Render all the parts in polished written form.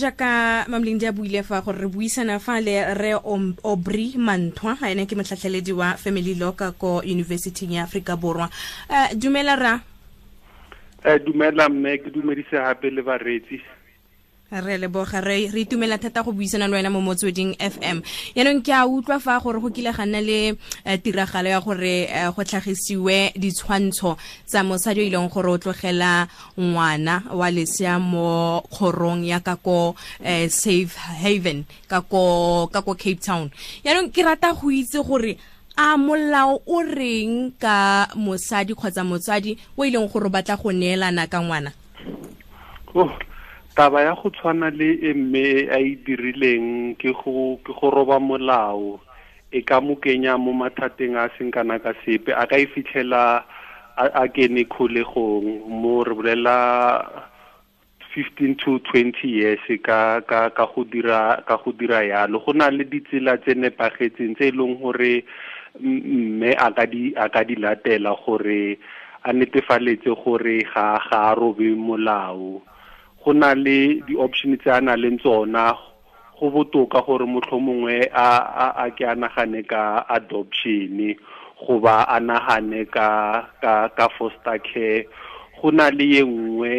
Jaaka Mamlindi a buile fa gore re buisana fa le re Aubrey Mantwa, ene ke motlhatlheledi wa Family Law ka ko University ya Afrika Borwa. Dumela ra. Dumela mme, ke dumedise gape le bareetsi. Re leboga, re itumela thata go buisana le wena mo Motsweding FM. Yaanong ke a utlwa fa gore go kile ga nna le tiragalo ya gore go tlhagisiwe ditshwantsho tsa mosadi o e leng gore o tlogela ngwana wa lesea mo kgorong ya ka ko Safe Haven ka ko Cape Town. Yaanong ke rata go itse gore a molao o reng ka mosadi kgotsa motsadi o e leng gore o batla go neelana ka ngwana? Oh, taba ya go tshwana le e mme a e dirileng ke go roba molao, e ka mo kenya mo mathateng a seng kana ka sepe. A ka e fitlhela a kene kgolegong, mo re bolela 15 to 20 years ka go dira yalo. Go na le ditsela tse nepagetseng tse e leng gore mme a ka di latela gore a netefaletse gore ga a robe molao. Go na le di-option tse a na leng tsona. Go botoka gore motlhomongwe a ke a nagane ka adoption, goba a nagane ka foster care. Go na le ye nngwe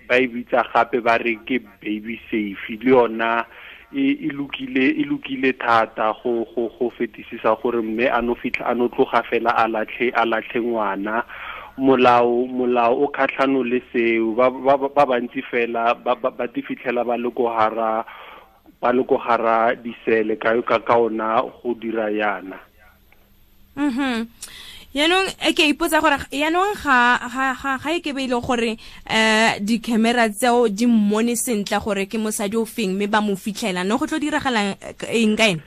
ba e bitsa gape ba re ke baby safe, le yona e lokile thata go fetisisa gore mme a no fitlha a no tloga fela a latlhe ngwana. Molao o kgatlhano le seo. Ba bantsi fela ba di fitlhela ba le ko hara disele ka ona go dira yana. Yaanong ke ipotsa gore yaanong ga e ke be ile gore di-camera tseo di mmone sentle gore ke mosadi o feng, mme ba mo fitlhela, no go tlo diragalang eng ka ene?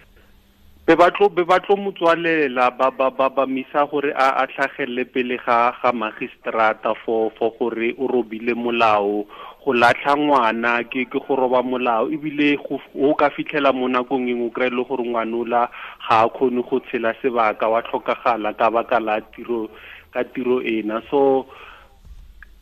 Be ba tlo motswalela, ba misa gore a tlhagelele pele ga magistrata for gore o robile molao. Go latlha ngwana ke go roba molao, ebile o ka fitlhela mo nakong engwe o kry-e le gore ngwanola ga a kgone go tshela sebaka, wa tlhokagala ka baka la tiro ena. So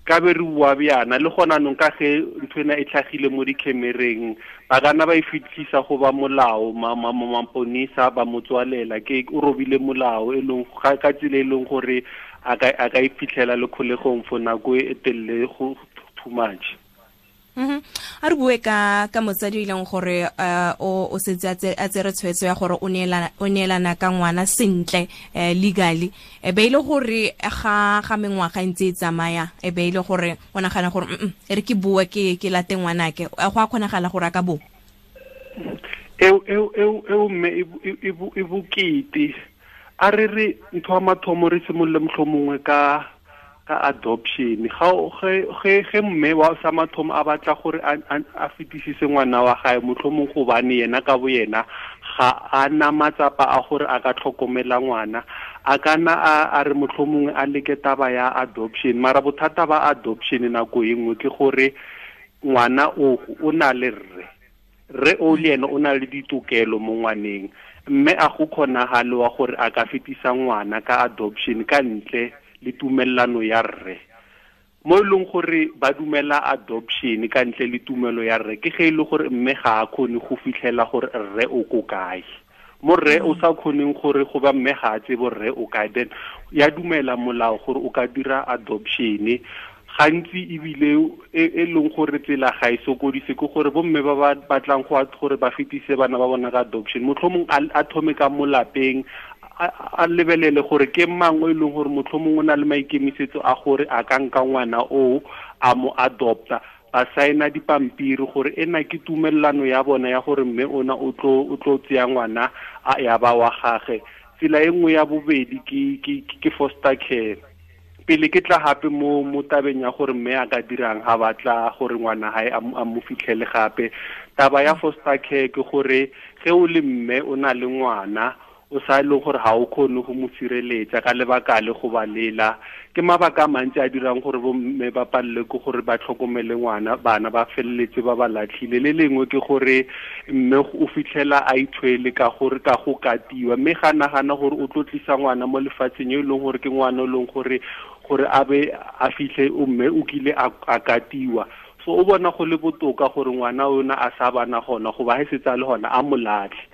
ka be re bua bjana le gona nong ka ge ntho ena e tlhagile mo dikhemereng, ba kana ba e fitlhisa go ba molao, maponisa ba motswalela, ke o robile molao e leng ka tsela e leng gore a ka e fitlhela le kgolegong for nako e telele go too much. A re bue ka motsadi o e leng gore o setse a tsere tshwetso ya gore o neelana ka ngwana sentle legally, e be ile gore ga mengwaga ntse e tsamaya, e be ile gore o nagana gore e re ke bue ke late ngwanake, go a kgonagala gore a ka bo eo mme e bokete. A re re ntho ya mathomo re simolole motlhomongwe ka adoption. Ge mme wa sa mathomo a batla gore a fetisise ngwana wa gae, motlhomong gobane yena ka bo yena ga a na matsapa a gore a ka tlhokomela ngwana, a kana a re motlhomongwe a leke taba ya adoption. Mara bothata ba adoption nako e nngwe ke gore ngwana o na le rre o le ene o na le ditokelo mo ngwaneng, mme a go kgonagale wa gore a ka fetisa ngwana ka adoption ka ntle le tumelano ya rre. Mo e leng gore ba dumela adoption ka ntle le tumelo ya rre, ke ge e le gore mme ga a kgone go fitlhela gore rre o ko kae. Mo rre o sa kgoneng gore go ba mme ga a tsebe rre o kae, then ya dumela molao gore o ka dira adoption. Gantsi ebile e leng gore tsela ga e sokodise ke gore bomme ba ba batlang gore ba fetise bana ba bona ka adoption, motlhomong a thome ka mo lapeng, a lebelele gore ke mang o e leng gore motlhomong o na le maikemisetso a gore a ka nka ngwana o a mo adopta, ba saena dipampiri gore ena ke tumelelano ya bona ya gore mme ona o tlo tseya ngwana a ya ba wa gage. Tsela e nngwe ya bobedi ke foster care. Pele ke tla gape mo tabeng ya gore mme a ka dirang ga batla gore ngwana hae a mo fitlhele gape. Taba ya foster care ke gore ge o le mme o na le ngwana o sa e leng gore ga o kgone go mo sireletsa ka lebaka le go ba lela, ke mabaka a mantsi a dirang gore bomme ba palele ke gore ba tlhokomele ngwana, bana ba feleletse ba ba latlhile. Le lengwe ke gore mme o fitlhela a ithwele ka gore ka go katiwa, mme ga nagana gore o tlo tlisa ngwana mo lefatsheng yo e leng gore ke ngwana o leng gore a be a fitlhe o mme o kile a katiwa. So o bona go le botoka gore ngwana ona a sa bana gona goba ha setse a le gona a mo latlhe.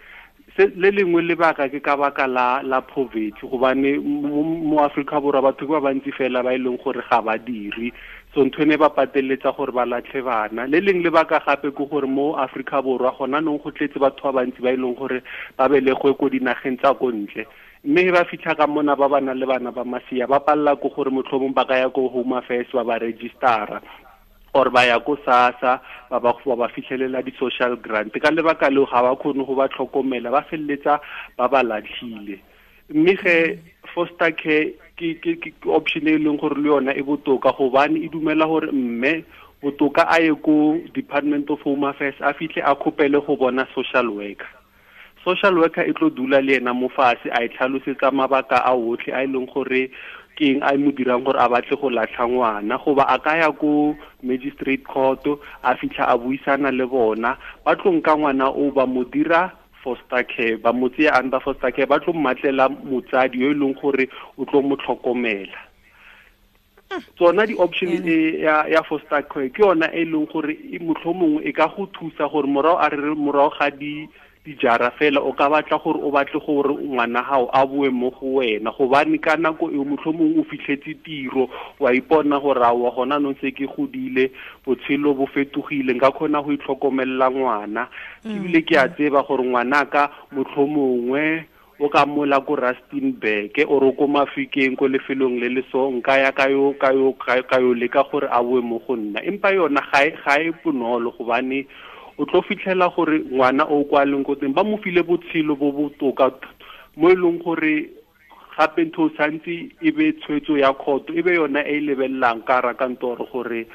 Le lengwe lebaka ke ka baka la poverty, gobane mo Afrika Borwa batho ba bantsi fela ba e leng gore ga ba dire, so ntho ene ba pateletsa gore ba latlhe bana. Le leng lebaka gape ke gore mo Afrika Borwa gona nong go tletse batho ba bantsi ba e leng gore ba belegwe ko dinageng tsa ko ntle, mme ba fitlha ka mona ba ba nang le bana ba masea ba palela ko gore motlhomong ba ka ya ko Home Affairs ba ba registera or ba ya ko SASSA ba ba fitlhelela di-social grant. Ka lebaka leo ga ba kgone go ba tlhokomela, ba feleletsa ba ba latlhile. Mme ge foster care ke option e leng gore le yona e botoka, gobane e dumela gore mme botoka a ye ko Department of Home Affairs a fitlhe a kgopele go bona social worker. Social worker e tlo dula le ena mo fatshe a e tlhalosetsa mabaka a otlhe a e leng gore ke eng a mo dirang gore a batle go latlha ngwana, goba a ka ya ko magistrate court a fitlha a buisana le bona, ba tlo nka ngwana o ba mo dira foster care, ba mo tseya under foster care, ba tlo mmatlela motsadi yo e leng gore o tlo mo tlhokomela. Tsona di-option e ya foster care ke yona e leng gore mohlomongwe e ka go thusa gore morago a re morago ga dijara fela o ka batla gore o batle gore ngwana gago a boe mo go wena, gobane ka nako eo mohlomongwe o fitlhetse tiro, wa ipona gore aowa gona nong se ke godile, botshelo bo fetogile, nka kgona go itlhokomelela ngwana. Ebile ke a tseba gore ngwanaka mohlomongwe o ka mola ko Rustenburg or ko Mafikeng ko lefelong le le so, nka ya ka yo leka gore a boe mo go nna. Empa yona ga e bonolo, gobane o tlo fitlhela gore ngwana o kwa leng ko teng ba mo file botshelo bo botoka mo e leng gore gape ntho o santse e be tshwetso ya kgoto, e be yona e lebelelang ka rakantoro gore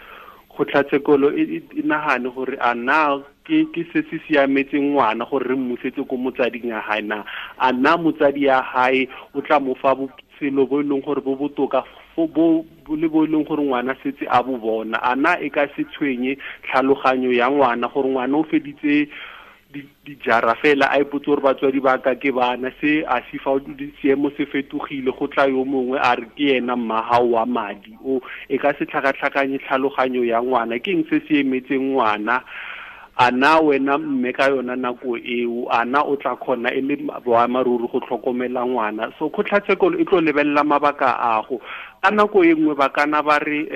kgotlatshekelo e nagane gore a na ke se se siametseng ngwana gore re mmusetse ko motsading ya hae na, a na motsadi ya hae o tla mo fa botshelo bo e leng gore bo botoka bo le bo e leng gore ngwana setse a bo bona, a na e ka se tshwenye tlhaloganyo ya ngwana gore ngwana o feditse dijara fela a ipotse gore batswadi ba ka ke bana, se a se fa seemo se fetogile go tla yo mongwe a re ke ena mmagao wa madi o, e ka se tlhakatlhakanye tlhaloganyo ya ngwana. Ke eng se se emetseng ngwana? A na wena mme ka yona nako eo a na o tla kgona e le boamaruri go tlhokomela ngwana? So kgotlatshekelo e tlo lebelela mabaka ago. Ka nako e nngwe ba kana ba re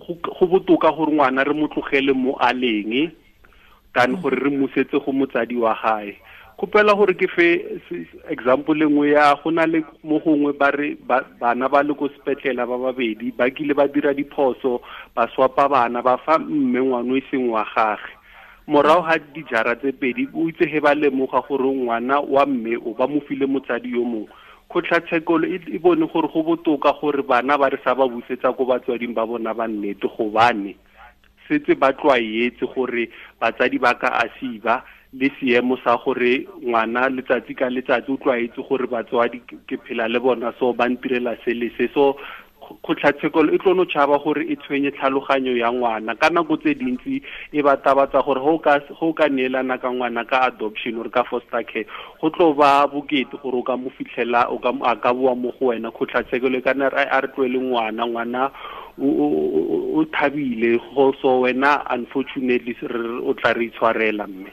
go botoka gore ngwana re mo tlogele mo a leng than gore re mmusetse go motsadi wa gae. Kgopela gore ke fe example nngwe ya go na le mo gongwe ba re bana ba le ko sepetlele ba babedi ba kile ba dira diphoso, ba swapa bana ba fa mme ngwana o e seng wa gagwe. Morago ga dijara tse pedi o itse he ba lemoga gore ngwana wa mme o ba mo file motsadi yo mongwe, kgotlatshekelo e bone gore go botoka gore bana ba re sa ba busetsa ko batswading ba bona ba nnete, gobane setse ba tlwaetse gore batsadi ba ka asiba le seemo sa gore ngwana letsatsi ka letsatsi o tlwaetse gore batswadi ke phela le bona, so ba ntirela se le se. So kgotlatshekelo e tlo no tšhaba gore e tshwenye tlhaloganyo ya ngwana. Ka nako tse dintsi e ba tabatsa gore go ka neelana ka ngwana ka adoption or ka foster care go tlo ba bokete gore o ka mo fitlhela o ka a ka boa mo go wena. Kgotlatshekelo e ka nna a re tloele ngwana, ngwana o thabile go, so wena unfortunately o tla re itshwarela mme.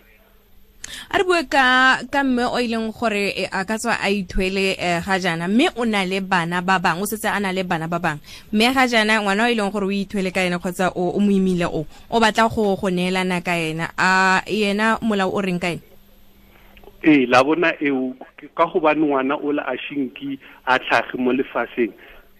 A re bue ka mme o ileng gore a ka tswa a ithwele ga jaana, mme o na le bana ba bangwe, o setse a na le bana ba bangwe, mme ga jaana ngwana o ileng gore o ithwele ka ena kgotsa o mo imile o batla go neelana ka ena, a yena molao o reng ka ena? Ee, la bona eo ka gobane ngwana o la a shinki a tlhage mo lefatsheng,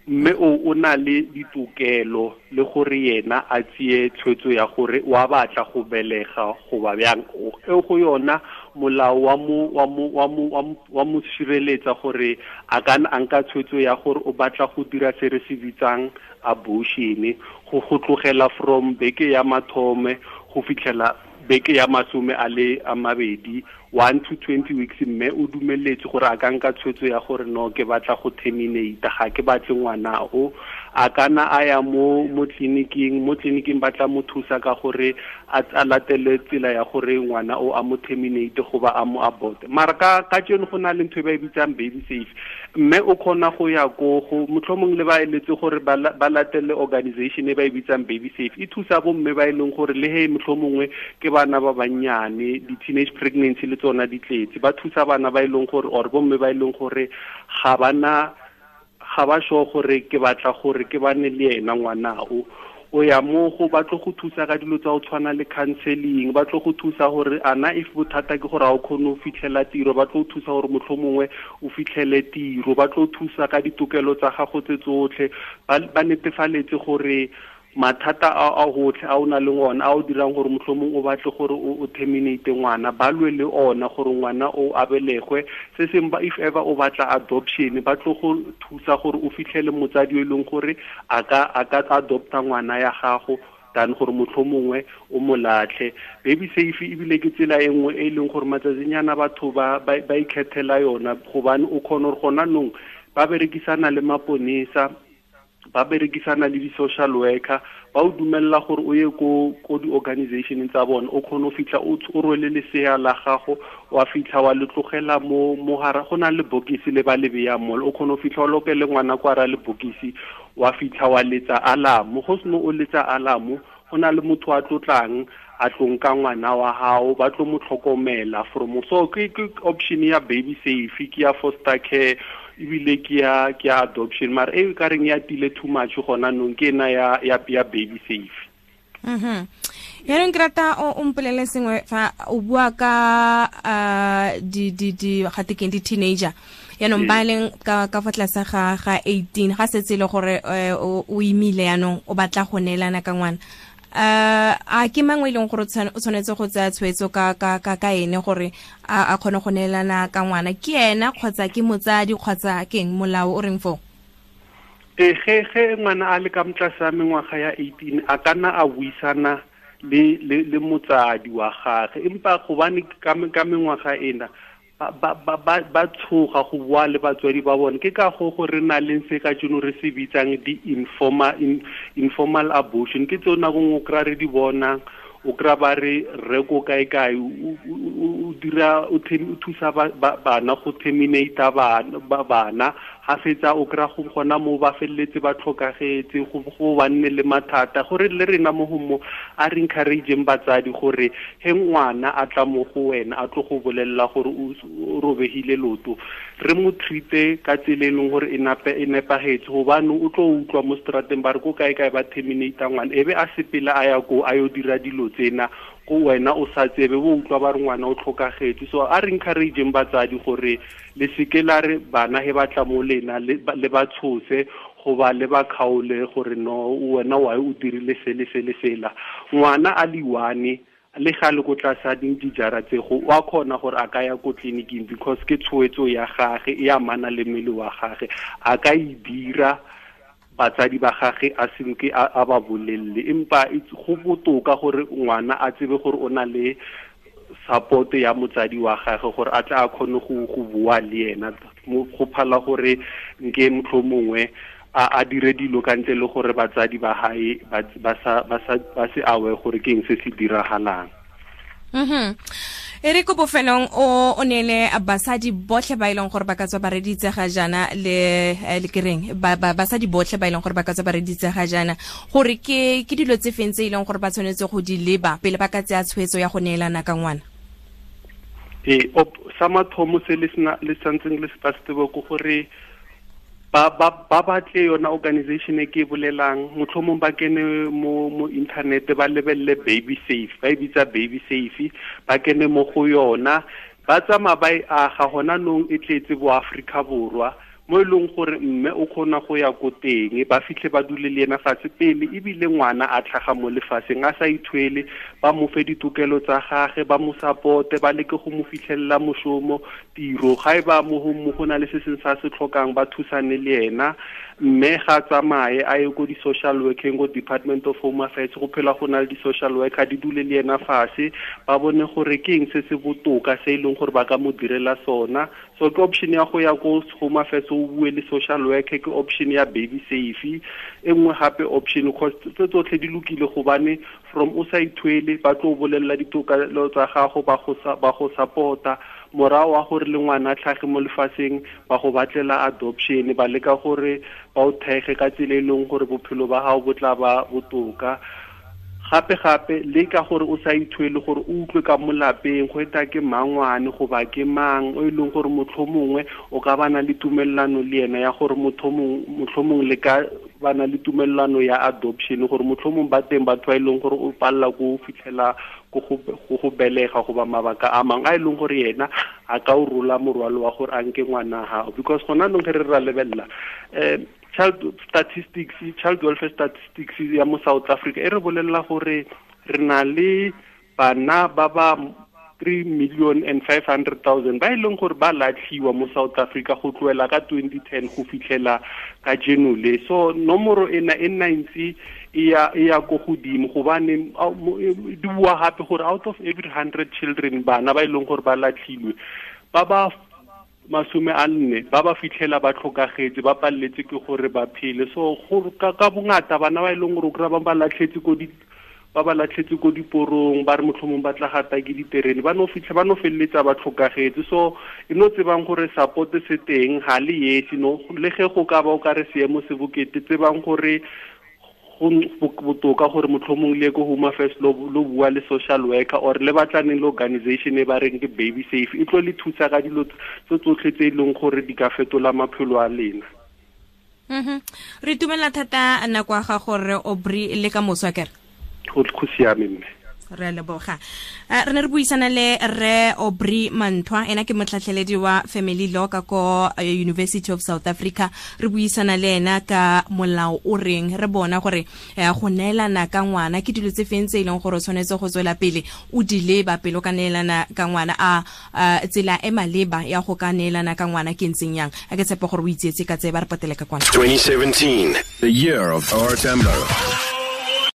mme o na le ditokelo le gore yena a tseye tshwetso ya gore wa batla go belega goba bjang. E go yona molao wa mo sireletsa gore a ka a nka tshwetso ya gore o batla go dira se re se bitsang abortion, go tlogela from beke ya mathome go fitlhela beke ya 22, 1 to 20 weeks, mme o dumeletse gore a ka nka tshwetso ya gore no ke batla go terminate, ga ke batle ngwana o, A kana a ya mo tleliniking, ba tla mo thusa ka gore a latele tsela ya gore ngwana o a mo terminate goba a mo abort. Mara ka tseno go na le ntho e ba e bitsang baby safe, mme o kgona go ya ko go motlhomong le ba eletse gore ba latele organization e ba e bitsang baby safe. E thusa bomme ba e leng gore le he motlhomongwe ke bana ba bannyane, di-teenage pregnancy le tsona di tletse, ba thusa bana ba e leng gore or bomme ba e leng gore ga ba sure gore ke batla gore ke bane le ena ngwana o ya mo go ba tlo go thusa ka dilo tsa go tshwana le counseling, ba tlo go thusa gore ana if bothata ke gore a o kgone go fitlhela tiro, ba tlo thusa gore motlhomongwe o fitlhele tiro, ba tlo thusa ka ditokelo tsa gago tse tsotlhe, ba netefaletse gore mathata a gotlhe a o na le ona a o dirang gore motlhomong o batle gore o terminate ngwana, ba lwe le ona gore ngwana o abelegwe. Se seng ba if ever o batla adoption, ba tlo go thusa gore o fitlhele motsadi o e leng gore a ka adopta ngwana ya gago than gore motlhomongwe o mo latlhe. Baby safe ebile ke tsela e nngwe e leng gore matsatsinyana batho ba ikgethela yona, gobane o kgona gore gona nong ba berekisana le maponesa, ba berekisana le di-social worker, ba o dumella gore o ye ko di-organization tsa bona, o kgone go fitlha o rwele lesea la gago, wa fitlha wa le tlogela mo hara, go na le bokisi le ba le beyang mo, o kgone go fitlha o lokele ngwana kwa ra le bokisi, wa fitlha wa letsa alarm. Go seno o letsa alarm, go na le motho a tlotlang a tlong ka ngwana wa hao, ba tlo mo tlhokomela from. So ke option ya baby safe, ke ya foster care, ebile ke ya adoption, mara e ka reng ya tile too much gona nong ke ena ya baby safe. Yaanong ke rata o mpolele sengwe fa o bua ka di gatekeng di-teenager, yaanong ba leng ka fa tlase ga 18, ga setse le gore o imile yaanong o batla go neelana ka ngwana, a ke mangwe e leng gore o tshwanetse go tsaya tshwetso ka ene gore a kgone go neelana ka ngwana, ke ena kgotsa ke motsadi kgotsa ke eng, molao o reng foo? Ge ngwana a le ka motlase ga mengwaga ya 18, a ka nna a buisana le motsadi wa gagwe, empa gobane ka mengwaga ena ba tshoga go bua le batswadi ba bone. Ke ka go re na leng se ka tseno re se bitsang di-informal abortion, ke tseo nako nngwe o kry-a re di bonang, o kry-a ba re rre ko kae-kae o dira o thusa bana go terminate bana, ga fetsa o kry-a go gona mo ba feleletse ba tlhokagetse, go ba nne le mathata. Gore le rena mo go mo a re encourageng batsadi gore he ngwana a tla mo go wena a tlo go bolelela gore o robegile loto, re mo treat-e ka tsela e leng gore e nepagetse, gobane o tlo utlwa mo strateng ba re ko kae-kae ba terminate ngwana, e be a sepela a ya ko a yo dira dilo tsena ko wena o sa tsebe, bo utlwa ba re ngwana o tlhokagetse. So a re encourageng batsadi gore le seke la re bana he ba tla mo lena le ba tshose goba le ba kgaole gore no wena wa o dirile se le se le sela. Ngwana a le one le ga le ko tlase a dijara tse go wa kgona gore a ka ya ko tleliniking, because ke tshwetso ya gage e amana le mmele wa gage, a ka e dira batsadi ba gage a senke a ba bolelle. Empa go botoka gore ngwana a tsebe gore o na le support ya motsadi wa gage gore a tla a kgone go bua le ena, go phala gore nke motlhomongwe a dire dilo ka ntle le gore batsadi ba hae ba se awe gore ke eng se se diragalang. E re ko bofelong o neele basadi botlhe ba e leng gore ba ka tswa ba reditse ga jaana le kereng basadi botlhe ba e leng gore ba ka tswa ba reditse ga jaana, gore ke dilo tse feng tse e leng gore ba tshwanetse go di leba pele ba ka tsaya tshwetso ya go neelana ka ngwana? Sa mathomo se le santseng le se ba se tsebe ke gore ba batle yona organization e ke e bolelang, motlhomong ba kene mo internet ba lebelele baby safe, ba e bitsa baby safe, ba kene mo go yona, ba tsamaya ba e aga gona nong e tletse bo Afrika Borwa, mo e leng gore mme o kgona go ya ko teng, ba fitlhe ba dule le ena fatshe pele ebile ngwana a tlhaga mo lefatsheng a sa ithwele, ba mo fe ditokelo tsa gage, ba mo supporte, ba leke go mo fitlhelela mošomo, tiro, ga e ba mo go na le se seng sa se tlhokang ba thusane le ena. Mme ga tsamaye a ye ko di-social working, ko Department of Home Affairs, go phela go na le di-social worker, di dule le ena fase, ba bone gore ke eng se se botoka se e leng gore ba ka mo direla sona. So ke option ya go ya ko Home Affairs, o bue le social worker, ke option ya Baby Safe. E nngwe gape option, cause tse tsotlhe di lokile, gobane from o sa ithwele, ba tlo bolelela ditokelo tsa gago, ba go support-a. Morago wa gore le ngwana a tlhage mo lefatsheng, ba go batlela adoption, ba leka gore ba o thege ka tsela e leng gore bophelo ba gago bo tla ba botoka. Gape gape le ka gore o sa ithwele, gore o utlwe ka mo lapeng go eta ke mangwane goba ke mang o e leng gore motlhomongwe o ka bana le tumelelano le ena ya gore motlhomongwe le ka bana le tumelelano ya adoption, gore motlhomongwe ba teng batho ba e leng gore o palela ko fitlhela go go belega goba mabaka a mangwe a e leng gore yena a ka o rola morwalo wa gore a nke ngwana gago. Because gona anong ge re ra lebelela child welfare statistics ya mo South Africa e re bolelela gore re na le bana ba ba 3,500,000 ba e leng gore ba latlhiwa mo South Africa go tloela ka 2010 go fitlhela ka jeno le. So nomoro ena e nna ntse e ya ko godimo, gobane di bua gape gore out of every 100 children, bana ba e leng gore ba latlhilwe, ba ba 40 ba ba fitlhela ba tlhokagetse, ba paleletse ke gore ba phele. So ka bongata bana ba e leng gore o kry-a ba latlhetse ko di ba ba latlhetse ko diporong, ba re motlhomong ba tla gata ke diterene, ba no fitlha ba no feleletsa ba tlhokagetse. So e no tsebang gore support se teng, ga le esi no, le ge go ka ba o ka re seemo se bokete, tsebang gore go botoka gore motlhomong le ko Home Affairs lo bua le social worker, or le batlaneng le organization e ba reng ke Baby Safe, e tlo le thusa ka dilo tse tsotlhe tse e leng gore di ka fetola maphelo a lena. Re itumela thata nako ya gago re Aubrey, le ka moso akere? Go siame mme. Re a leboga. Re ne re buisana le re Aubrey Mantwa, ena ke motlhatlheledi wa Family Law ka ko University of South Africa. Re buisana le ena ka molao o reng, re bona gore go neelana ka ngwana ke dilo tse feng tse e leng gore o tshwanetse go tswela pele o di leba pele o ka neelana ka ngwana, a tsela e maleba ya go ka neelana ka ngwana ke ntseng yang. A ke tshepa gore o itseetse ka tse ba re patele ka kwana. 2017, the year of our Tembo.